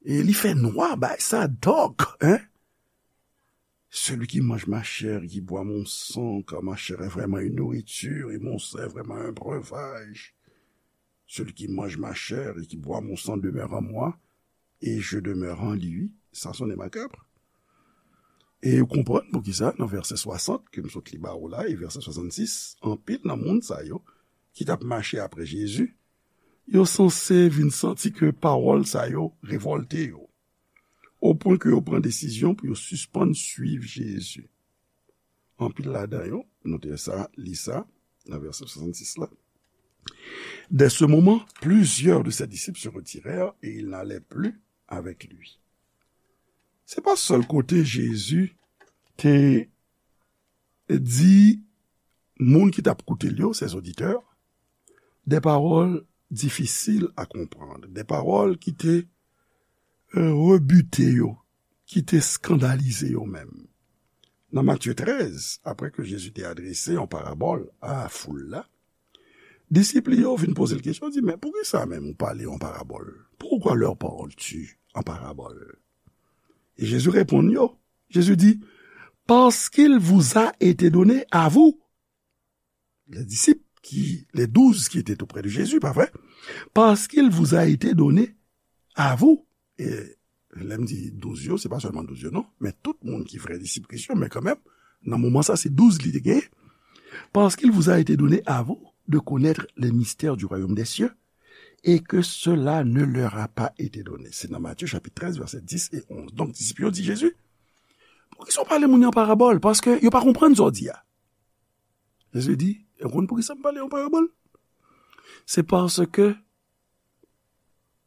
E li fè nwa, bagay sa dark, en? Celui qui mange ma chair, qui boit mon sang, car ma chair est vraiment une nourriture, et mon sang est vraiment un breuvage. Celui qui mange ma chair et qui boit mon sang demeure en moi, et je demeure en lui. Sa sonnen makab. E ou konprann poukisa, nan vèsè swasant, ke m sot li ba ou la, e vèsè swasannsis, anpil nan moun sa yo, ki t ap mache apre Jezi, yo sanse vin santi ke pawòl sa yo revòlte yo, o pwen ke yo pran desizyon pou yo sispann swiv Jezi. Anpil ladan yo, nou te sa, li sa, nan vèsè swasannsis la. Dès ce moment, plusieurs de ses disciples se retirèrent et ils n'allaient plus avec lui. Se pa sèl kote Jezi te di moun ki t ap koute l yo, ses auditeurs, de pawòl difisil a konprann, de pawòl ki te, eh, rebute yo, ki te eskandalize yo menm. Nan Matye trèz, apre ke Jezi te adrese yon parabòl a foul la, disip li yo vin poze l kesyon, di, men poukisa menm ou pale yon parabòl? Pourquoi leur parles-tu en parabole? E Jezi reponn yo, Jezi di, parce qu'il vous a été donné à vous, les disciples, qui, les douze qui étaient auprès de Jésus, pa vre? Parce qu'il vous a été donné à vous. E lè m di douz yo, se pa sèlman douz yo, non, men tout moun ki vrè disip Kris yo, men kanmenm, nan moman sa, se douz li te genyen. Parce qu'il vous a été donné à vous de connaître les mystères du royaume des cieux, et que cela ne leur a pas été donné. Se nan Matye chapit trèz, vèsè dis e onz. Donk, disip yo di Jezi, poukisa w pale moun yo an parabòl? Paske yo pa konprann sa w di a. Jezi di, e w konn poukisa m pale an parabòl? Se paske,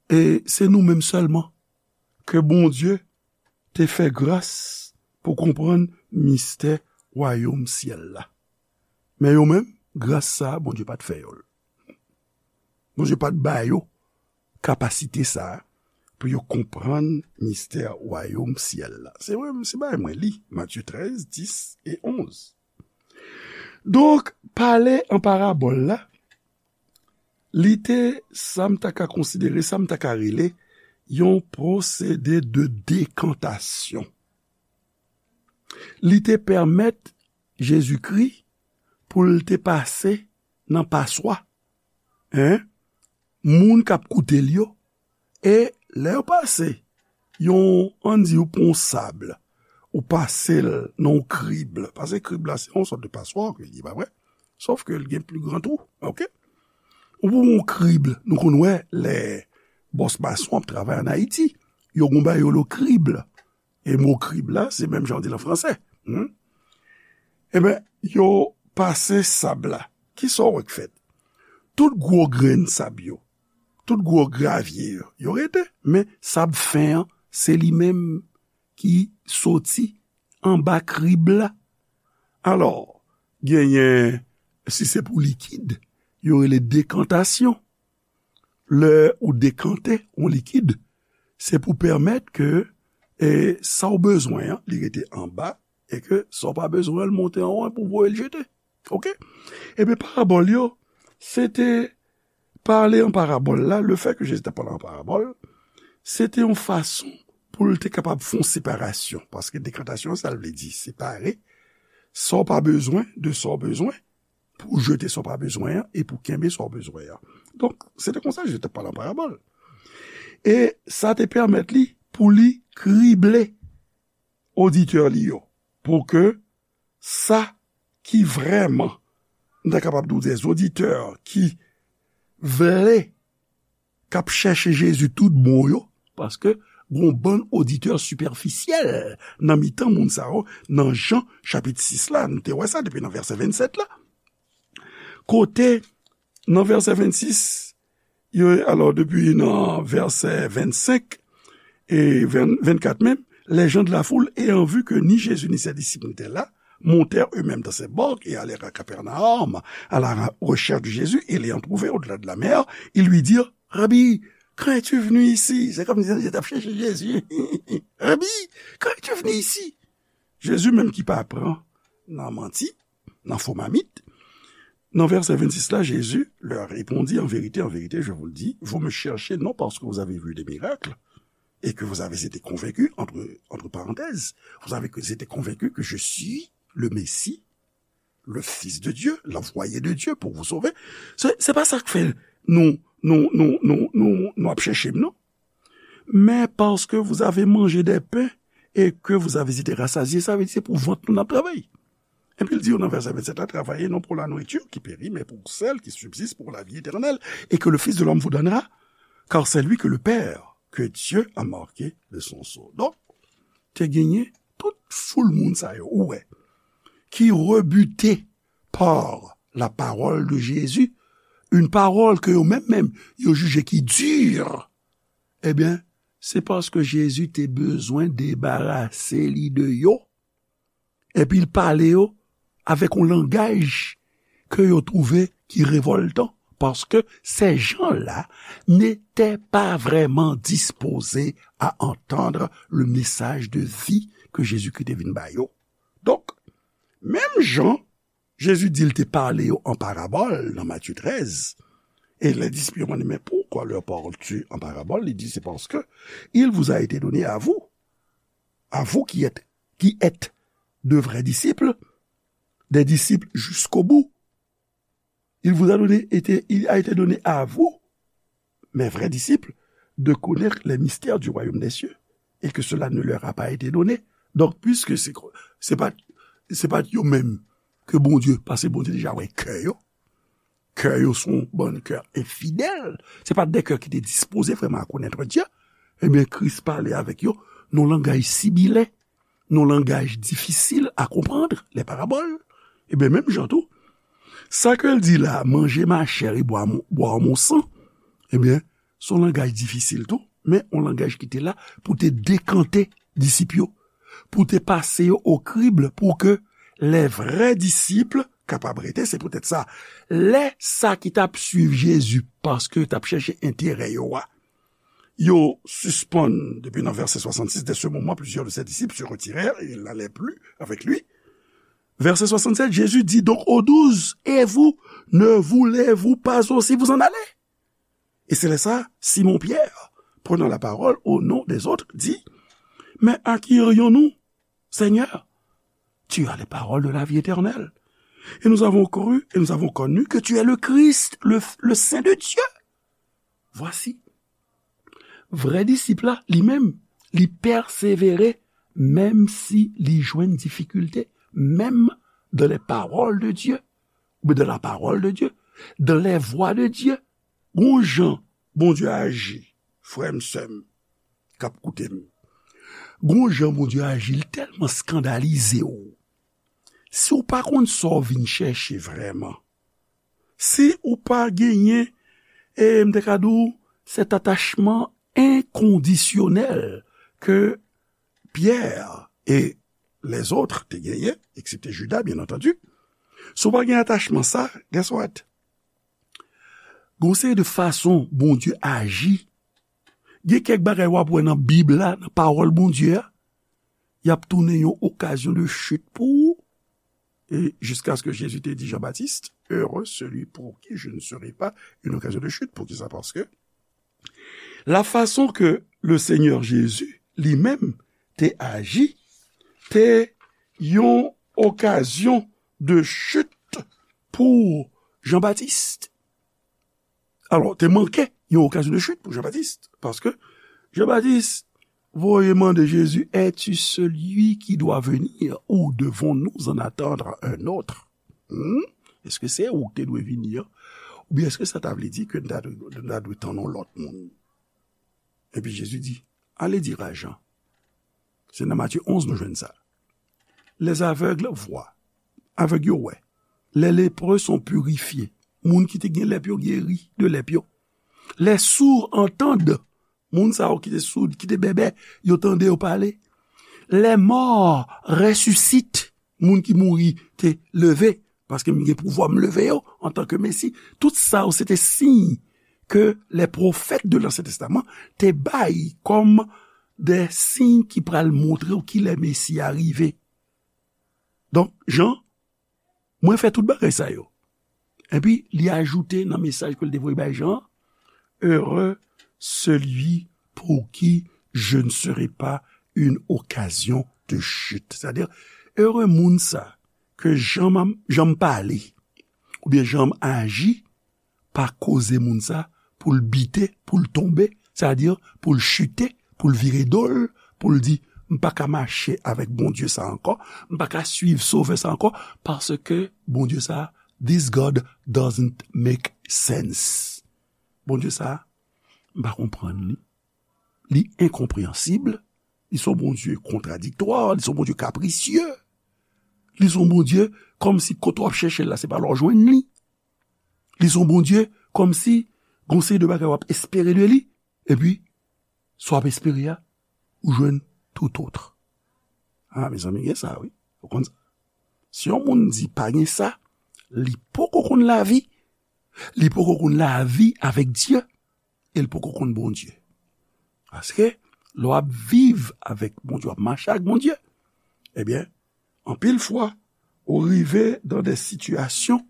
e se nou menm sèlman ke Bondye te fè gras pou konprann mistè wayòm syèl la. Men yo menm, gras sa a, Bondye pa t fè yo l. Bondye pa t ba yo kapasite sa a pou yo konprann mistè wayòm syèl la. Se vre, se bagay mwen li, Matye trèz, dis e onz. Donk, pale an parabòl la, li te, sa m ta ka konsidere, sa m ta ka rele, yon pwosede de dekantasyon. Li te pèmèt Jezikri pou l te pase nan paswa, en, moun k ap koute l yo, e lè yo pase yon, ann di, ou pran yon sab, ou pase l nan yon krib, paske krib la, se yon sòt de paswa ke li ye, pa vre? Sòf ke l gen pli gran twou, oke? Ou pran yon krib, nou konn wè lè bòs mason ap travay ann Ayiti, yo gon bagay yo rele krib. E mo krib la, se menm jan w di l an fransè. Hmm? Eben, yo pase sab la. Kisa w wè k fèt? Tout gwo grenn sab yo, tout gwo gravye yo, yo rete. Men sab fen an, se li menm ki soti anba krib la. Alò, genyen, si se pou likid, yo rele dekantasyon. Lè ou dekante yon likid, se pou pèmèt ke, e, sa w bezwen an, li rete anba, e ke sa w pa bezwen an, l monte anwo pou voye l jete. Oke? Ebyen, parabòl yo, se te pale an parabòl la, lefèt ke Jezi te pale an parabòl, se te yon fason pou l te kapab fè yon separasyon, paske dekantasyon, sa l vle di, separe, sa w pa bezwen de sa w bezwen, pou w jete sa w pa bezwen an e pou w kenbe sa w bezwen an. Donk, se te konsa Jezi te pale an parabòl. E sa te pèmèt li pou li krible oditè li yo, pou ke sa ki vrèman, m ta kapab di w, dè oditè ki vle, k ap chèche Jezi tout bon yo, paske Gon bann oditè sipèfisyèl nan mitan moun sa yo, nan Jan chapit sis la, nou te wè sa depi nan vèsè vennsèt la. Kote, nan vèsè vennsis, yo, alò, depi nan vèsè vennsenk e venn, vennkat menm, les gens de la foule, ayant vu que ni Jésus ni ses disciples n'étaient là, montèrent eux-mêmes dans ces barques et allèrent à Capernaum à la recherche de Jésus, et l'ayant trouvé au-delà de la mer, ils lui dirent, Rabbi, quand es-tu venu ici? C'est comme si ils étaient chercher Jésus. Rabbi, quand es-tu venu ici? Jezi menm ki pa pran nan manti, nan fo mamit. Nan vèsè vennsis la, Jésus leur répondit, en vérité, en vérité, je vous le dis, vous me cherchez non parce que vous avez vu des miracles et que vous avez été convaincus, entre, entre parenthèses, vous avez été convaincus que je suis le Messie, le Fils de Dieu, l'envoyé de Dieu pour vous sauver. Se, se pa sa k fè nou, nou, nou, nou, nou, nou ap chèche m, non. Mais parce que vous avez mangé des pains et que vous avez été rassasiés, sa vle di se pou vant nou n ap travay. Epi l di yo nan vèsè vennsèt la, travaillez non pour la nourriture qui périt, mais pour celle qui subsiste pour la vie éternelle, et que le Fils de l'homme vous donnera, car c'est lui que le Père, que Dieu a marqué de son sceau. Donk, te genyen tout foul moun sa yo, ou wè, ki rebute par la parole de Jésus, une parole ke yo menm menm, yo jije ki di, ebyen, se paske Jezi te bezwen debarase li de yo. Epi l pale yo avèk yon langaj ke yo twouve ki revòltan, paske ces gens-là n'étaient pas vraiment disposés à entendre le message de vie que Jésus-Christ te vin ba yo. Donk, menm jan Jezi di l te pale yo an parabòl nan Matye trèz, e les disciples yo mande, mais pourquoi leur parles-tu en parabole? Li di, c'est parce que il vous a été donné à vous, à vous qui êtes, qui êtes de vrais disciples, des disciples jusqu'au bout. Il vous a donné, été, il a été donné à vous, mes vrais disciples, de connaître les mystères du royaume des cieux, et que cela ne leur a pas été donné. Donk, puiske se, se pa, se pa yo menm ke Bondye, paske Bondye deja wè kè yo. Kè yo se yon bann kè enfidèl. Se pa de kè ki te dispoze vrèman a konèt Dye. Ebyen, Kris pale avèk yo nan langaj sibilen, nan langaj difisil a konprann, les paraboles. Ebyen, menm jan tou, sa ke l di la, manger ma chair et boire mon, boire mon sang, ebyen, se yon langaj difisil tou, men yon langaj ki te la pou te dekante disip yo, pou te pase yo o krib, pou ke les vrais disciples kapab rete. Se poutèt sa, lè sa ki t ap suiv Jezi, paske yo t ap chèche enterè yo a, yo sispann, depi nan vèsè swasannsis, dès ce moment, plusieurs de ses disciples se retirèrent et ils n'allaient plus avec lui. Verset soixante-sept, Jésus dit donc aux douze, et vous, ne voulez-vous pas aussi vous en aller? Et c'est là ça, Simon Pierre, prenant la parole au nom des autres, dit, mais à qui irions-nous, Seigneur? Tu as les paroles de la vie éternelle. Et nous avons cru, et nous avons connu que tu es le Christ, le, le Saint de Dieu. Vwasi, vrè disip la, li menm, li pèsevere, menm si li jwenn difikilte, menm dans les paroles de Dieu, oubyen dans la parole de Dieu, dans les voies de Dieu. Gon jan Bondye aji, frè m, sè m, k ap koute m. Gon jan Bondye aji, li tèlman eskandalize w. Si w pa konn sa w vin chèche vrèman, si ou pa genyen, e m te ka di w, cet attachement inconditionnel ke Pierre et les autres te genyen, eksepte Judas, bien entendu, si w pa gen atachman sa, guess what? Gon seri de fason Bondye aji. Gen kèk bagay w ap wè nan Bib la, nan pawòl Bondye a, y ap tounen yon okazyon de chit pou ou. E jiskaske Jezi te di Jan Batis, heureux celui pour qui je ne serai pas une occasion de chute. Poukisa? Paske la fason ke le Senyè Jezi li menm te aji, te yon okazyon de chit pou Jan Batis. Alò, te manke yon okazyon de chit pou Jan Batis, paske Jan Batis voye mande Jezi, es-tu celui qui doit venir ou devons-nous en attendre un autre? Hmm? Èske se ou ki te dwe vini an? Oubyen èske sa ta vle di ke nou ta dwe, nou ta dwe tann yon lòt moun? Epi Jezi di, Allez dire à Jean. Se nan Matye onz nou jwenn sa. Les aveugles voient. Avèg yo wè. Les lépreux sont purifiés. Moun ki te gen lèp yo geri de lèp yo. Les sourds entendent. Moun sa yo ki te soud, ki te bèbè, yo tande, yo pale. Les morts ressuscitent. Moun ki mouri te leve, paske m gen pouvwa m leve yo antanke Mesi. Tout sa yo se te siy ke les prophètes de l'Ancien Testament te bay kòm de siy ki pral montre w kilè Mesi a rive. Donk, Jan, mwen fè tout bagay sa yo. Epi, li ajoute nan mesaj ke l te voye bay Jan, Heureux celui pour qui je ne serai pas une occasion de chute. Sètadi, ere moun sa ke jan m, jan m pale, oubyen jan m aji, pa koze moun sa pou l bite, pou l tonbe, sètadi pou l chite, pou l vire do l, pou l di, "M pa ka mache avèk Bondye sa ankò, m pa ka swiv Sovè sa ankò, paske Bondye sa, this God doesn't make sense." Bondye sa, m pa konprann li. Li enkonpreyansib, li se yon Bondye kontradiktwa, li se yon Bondye kaprisye, li se yon Bondye kòmsi kote w ap chèche l la, se pa la w jwenn li. Li se yon Bondye kòmsi gon seri de bagay w ap espere de li, epi sa w ap espere a, ou jwenn tout autre. A, mezanmi, gen sa, wi. Ou konn sa? Si yon moun di pa gen sa, li poko konn lavi, li poko konn lavi avèk Dye, e l poko konn Bondye. Paske, lè w ap viv avèk Bondye, w ap mache ak Bondye, ebyen, anpil fwa, ou rive dan de sitiyasyon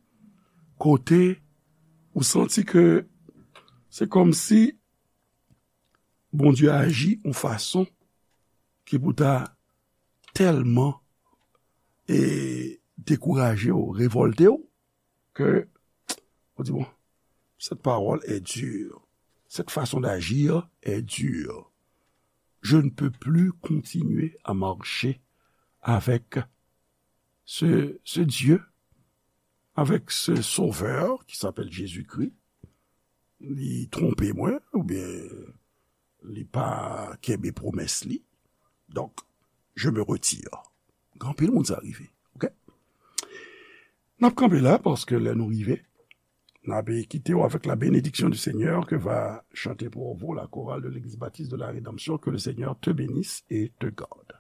kote ou santi ke se kòmsi Bondye aji yon fason ki pou ta tèlman, e, dekouraje w, revòlte w, ke ou di, "Bon, cette parole est dure. Cette façon d'agir est dure. Je ne peux plus continuer à marcher avec ce, ce Dieu, avec ce Sauveur qui s'appelle Jésus-Christ. Li twonpe mwen, oubyen li pa kenbe pwomès li. Donc, je me retire." Gen anpil moun sa rive, oke? N ap kanpe la, paske lè nou rive, n ap kite w avec la bénédiction du Seigneur que va chanter pour vous la chorale de l'Église Baptiste de la Rédemption. Que le Seigneur te bénisse et te garde.